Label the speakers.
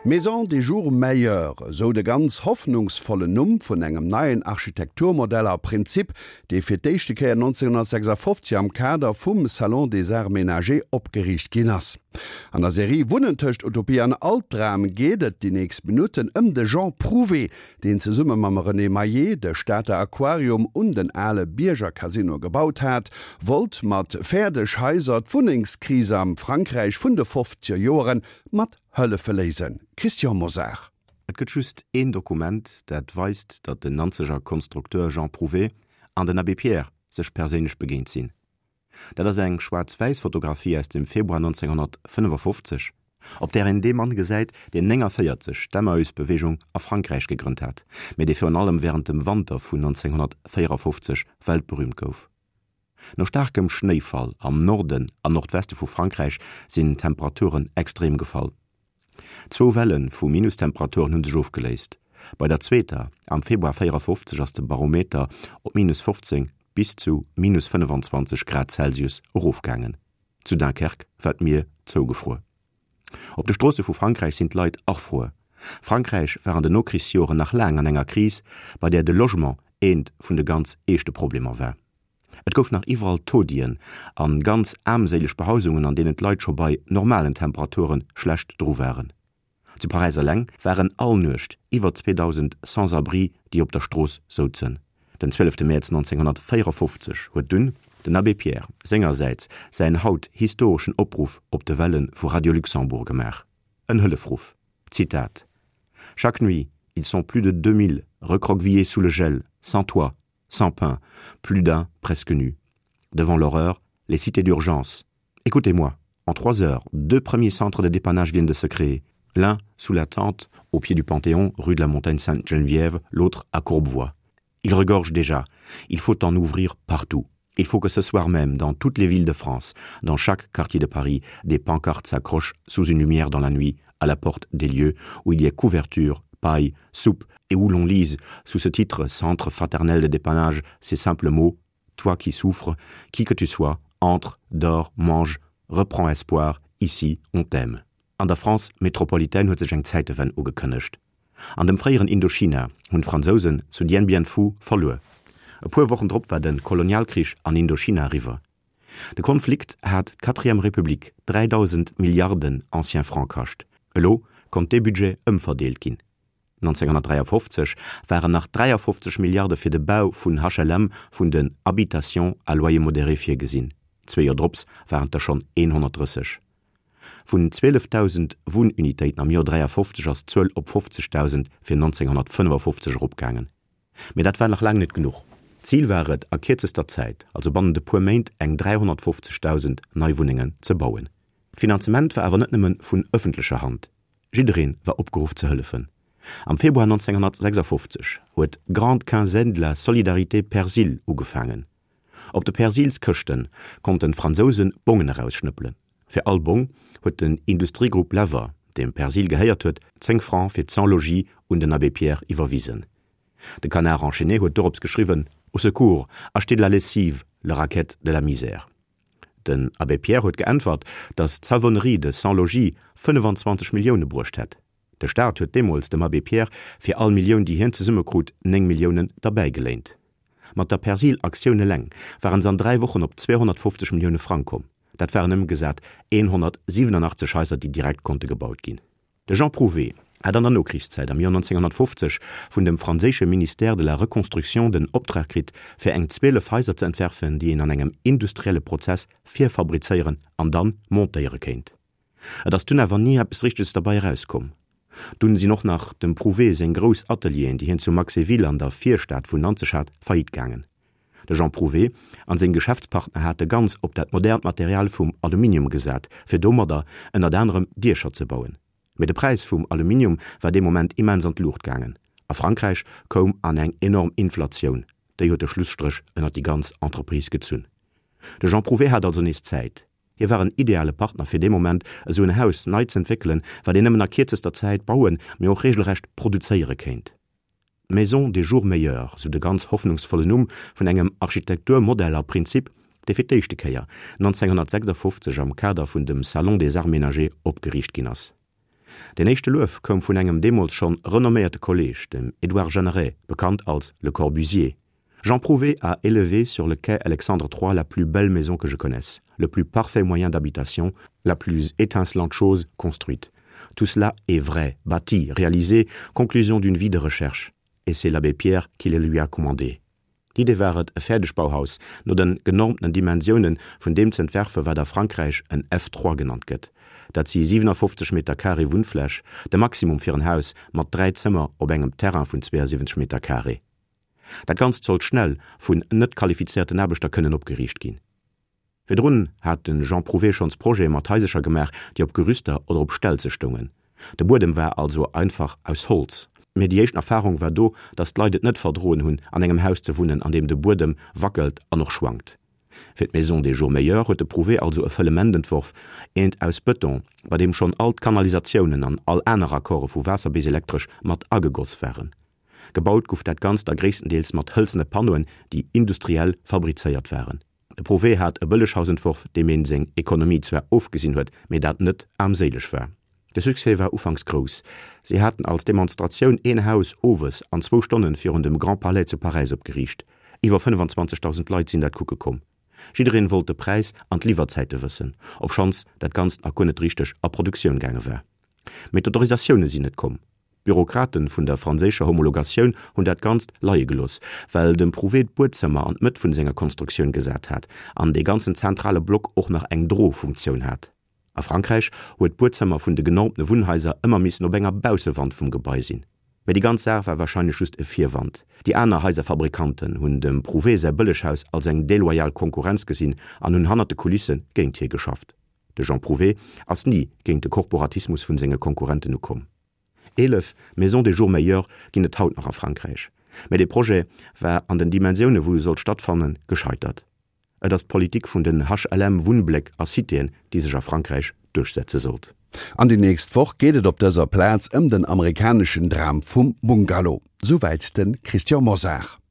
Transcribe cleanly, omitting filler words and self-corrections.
Speaker 1: Maison des jours meilleurs, esou de ganz hoffnungsvollen Numm vun engem neien Architekturmodell a Prinzip, dee fir d'éischte Kéier 1956 am Kader vum Salon des Arts Ménagers opgeriicht ginn ass. An der Serie Wunnen tëscht Utopie an Albdram geet et déi nächst Minutten ëm de Jean Prouvé, deen zesumme mam René Maillet de Stater Aquarium un den ale Bierger Casino gebaut hat, wollt mat fäerdeg Haiser d'Wunnengskrise am Frankräich vun de fofzeger Joeren mat Hëllefe léisen. Christian Mosar.
Speaker 2: Et gëtt just een Dokument, dat weist, datt den Nanzeger Konstrukteur Jean Prouvé an den Abbé Pierre sech perséinlech begéint sinn. Dat ass eng schwaarz-wäiss Fotografie aus dem Februar 1955, op där een dee Mann gesäit, deen 49 d'Emmaüs-Beweegung a Frankräich gegrënnt hat, mee dee virun allem wärend dem Wanter vun 1954 weltberüümt gouf. No staarkem Schnéifall am Norden an Nordweste vu Frankräich sinn d'Temperaturen extrem gefall. Zwou Welle vu Minustemperaturen hu sech ofgeléist. Bei der zweeter am Februar 54 ass de Barometer op minus 15 bis zu minus 25 Grad Celsius erofgaangen. Zu Dunkerque war d'Mier zougefruer. Op de Stroosse vu Frankräich sinn d'Leit erfruer. Frankräich war an den Nokrichsjoren nach laang an enger Kris, bei där de Logement eent vun de ganz eeschte Problemer war. Et gouf nach iwwerall Taudien an ganz aarmséileg Behausungen, an deenen d'Leit scho bei normalen Temperaturen schlecht dru waren. Zu Paräis eleng waren all Nuecht iwwer 2.000 Sans-abri, déi op der Strooss souzen. Den 12 Mäerz 1954 huet dunn den Abbé Pierre sengersäits säin haut historeschen Opruff op de Welle vu Radio Luxembourg gemaach, en Hëllefruff, Zitat, Chaque nuit, ils sont plus de 2.000 recroquevillés sous le gel, sans toit, sans pain, plus d'un presque nu. Devant l'horreur, les cités d'urgence. Écoutez-moi, en trois heures, deux premiers centres de dépannage viennent de se créer. L'un sous la tente, au pied du Panthéon, rue de la Montagne Sainte-Geneviève, l'autre à Courbevoie. Il regorge déjà. Il faut en ouvrir partout. Il faut que ce soir même, dans toutes les villes de France, dans chaque quartier de Paris, des pancartes s'accrochent sous une lumière dans la nuit, à la porte des lieux où il y a couverture, paille, soupe et où l'on lise, sous ce titre Centre fraternel de dépannage, ces simples mots Toi qui souffres, qui que tu sois, entre, dors, mange, reprends espoir, ici on t'aime. An der France métropolitaine huet sech eng Zäitewenn ugekënnegt. An dem fréieren Indochina hunn d'Fransousen zu Dien Bien Phu verluer. E puer Wochen drop war de Kolonialkrich an Indochina eriwwer. De Konflikt hat d'Quatrième République 3.000 Milliarden anciens Francs kascht. Elo konnt dee Budget ëmverdeelt ginn. 1953 waren nach 53 Milliarde fir de Bau vun HLM, vun den Habitations à loyer modéré virgesinn. Zwee Joer drops waren et der schonn 130. Vun 12.000 Wunnunitéiten am Joer 53 ass d'Zuel op 50.000 fir 1955 eropgaangen. Mee dat war nach laang net genuch. D'Zil war et, a kierzester Zäit, also bannent e puer Méint, eng 350.000 nei Wunnengen ze bauen. D'Finanzement war awer net nëmme vun ëffentlecher Hand. Jidderee war opgeruff ze hëllefen. Am Februar 1956 huet d'Grande Quinzaine de la Solidarité Persil ugefaangen. Op de Persilskëschte konnten d'Fransousen Bongen erausschnëppelen. Fir all Bong huet den Industriegrupp Lever, deem Persil gehéiert huet, 10 Francs fir d'Sans-Logis un den Abbé Pierre iwwerwisen. De Canard enchaîné huet dorops geschriwwen, Au secours, achetez de la lessive, le racket de la misère. Den Abbé Pierre huet geäntwert, datt d'Savonnerie de Sans-Logis 25 Millioune bruecht hätt. De Staat huet deemools dem Abbé Pierre fir all Millioun, déi hien zesummekrut, 9 Milliounen derbäigeléint. Mat der Persil-Aktioun eleng waren se an 3 Wochen op 250 Millioune Frang komm. Dat waren ëmgesat 187 Haiser, déi direkt konnte gebaut ginn. De Jean Prouvé hat an der Nokrichszäit am Joer 1950 vun dem franséische Ministère de la Reconstruction den Optrag kritt, fir eng 12 Haiser ze entwerfen, déi een an engem industrielle Prozess virfabrizéieren an dann montéiere kéint. Et ass dunn awer ni eppes Richteges derbei erauskomm. Dunn sinn och nach dem Prouvé seng grouss Atelieren, déi hien zu Maxéville an der Virstad vun Nanzeg hat, faillite gaangen. De Jean Prouvé an seng Geschäftspartner hate ganz op dat modernt Material vum Aluminium gesat, fir domadder ënnert anerem Diecher ze bauen. Mee de Präis vum Aluminium war dee Moment immens an d'Luucht gaangen a Frankräich koum an eng enorm Inflatioun. Déi huet de Schlusstréch ënnert déi ganz Entreprise gezunn. De Jean Prouvé hat also nees Zäit. Hie war en ideale Partner fir dee Moment esou en Haus nei z'entwéckelen, wat een nëmmen a kierzester Zäit bauen, mee och regelrecht produzéiere kéint. D'Maison des jours meilleurs, sou de ganz hoffnungsvollen Numm vun engem Architekturmodell a Prinzip, dee fir d'éischte Kéier 1956 am Kader vun dem Salon des Arts Ménagers opgeriicht ginn ass. Deen éischte Luef koum vun engem deemools schonn renomméierte Kolleeg, dem Édouard Jeanneret, bekannt als Le Corbusier, Jean Prouvé a élevé sur le quai Alexandre III la plus belle maison que je connaisse, le plus parfait moyen d'habitation, la plus étincelante chose construite. Tout cela est vrai, bâti, réalisé, conclusion d'une vie de recherche. Et c'est l'abbé Pierre qui le lui a commandé. D'Idee war et, e Fäerdegbauhaus no den genormtenen Dimensiounen vun deem z'entwerfen, wat a Frankräich en F3 genannt gëtt. Dat si 57 Meter carré Wunnfläch, de Maximum fir en Haus mat 3 Zëmmer op engem Terrain vun 72 Meter carré. Dat Ganzt sollt schnell vun net qualifizéierten Aarbechter kënnen opgeriicht ginn. Virdrun hat de Jean Prouvé schonns Projete mat Haisercher gemaach, déi op Gerüster oder op Stelze stoungen. De Buedem war also einfach aus Holz. Mee déi éischten Erfarung war do, datt d'Leit et net verdroen hunn, an engem Haus ze wunnen, an deem de Buedem wackelt an och schwankt. Fir d'Maison des jours meilleurs huet de Prouvé also e Fëllement entworf, eent aus Bëton, bei deem schonn all d'Kanalisatiounen an all aner Raccorde vu Waasser bis Elektresch mat agegoss waren. Gebaut guff dat Ganzt da gréisstendeels mat hëlzene Panneauen, déi industriell fabrizéiert waren. De Prouvé hat e Bëlleghaus entworf, deem een seng Ekonomie zwar ofgesinn huet, mee dat net aarmséileg war. De Succès war ufanks grouss. Si haten als Demonstratioun een Haus owes an zwou Stonnen virun dem Grand Palais zu Paräis opgeriicht. Iwwer 25.000 Leit sinn dat kucke komm. Jiddereen wollt de Präis an d'Liwwerzäite wëssen, obschonns dat Ganzt nach guer net richteg a Produktioun gaange war. Mee d'Autorisatioune sinn net komm. D'Bürokraten vun der franséischer Homologatioun hunn dat Ganzt leie gelooss, well dem Prouvé d'Buedzëmmer an d'Mëtt vun senger Konstruktioun gesat hat an dee ganzen zentrale Block och nach eng Drofunktioun hat. A Frankräich huet d'Buedzëmmer vun de genormtene Wunnhaiser ëmmer missen op enger Baussewand vum Gebai sinn. Mee déi ganz Saach war warscheinlech just e Virwand. Déi aner Haiserfabrikanten hunn dem Prouvé säi Bëlleghaus als eng deloyal Konkurrenz gesinn an hunn hannert de Kulisse géint hie geschafft. De Jean Prouvé ass ni géint de Korporatismus vun senge Konkurrenten ukomm. 11 Maisons des jours meilleurs ginn et haut nach a Frankräich, mä dee Projet war an den Dimensioune wou e sollt stattfannen, gescheitert. Et ass d'Politik vun den HLM-Wunnbléck a Citéen, déi sech a Frankräich duerchsetze sollt.
Speaker 1: An déi nächst Woch geet et op dëser Plaz ëm den amerikaneschen Dram vum Bungalow. Souwäit de Christian Mosar.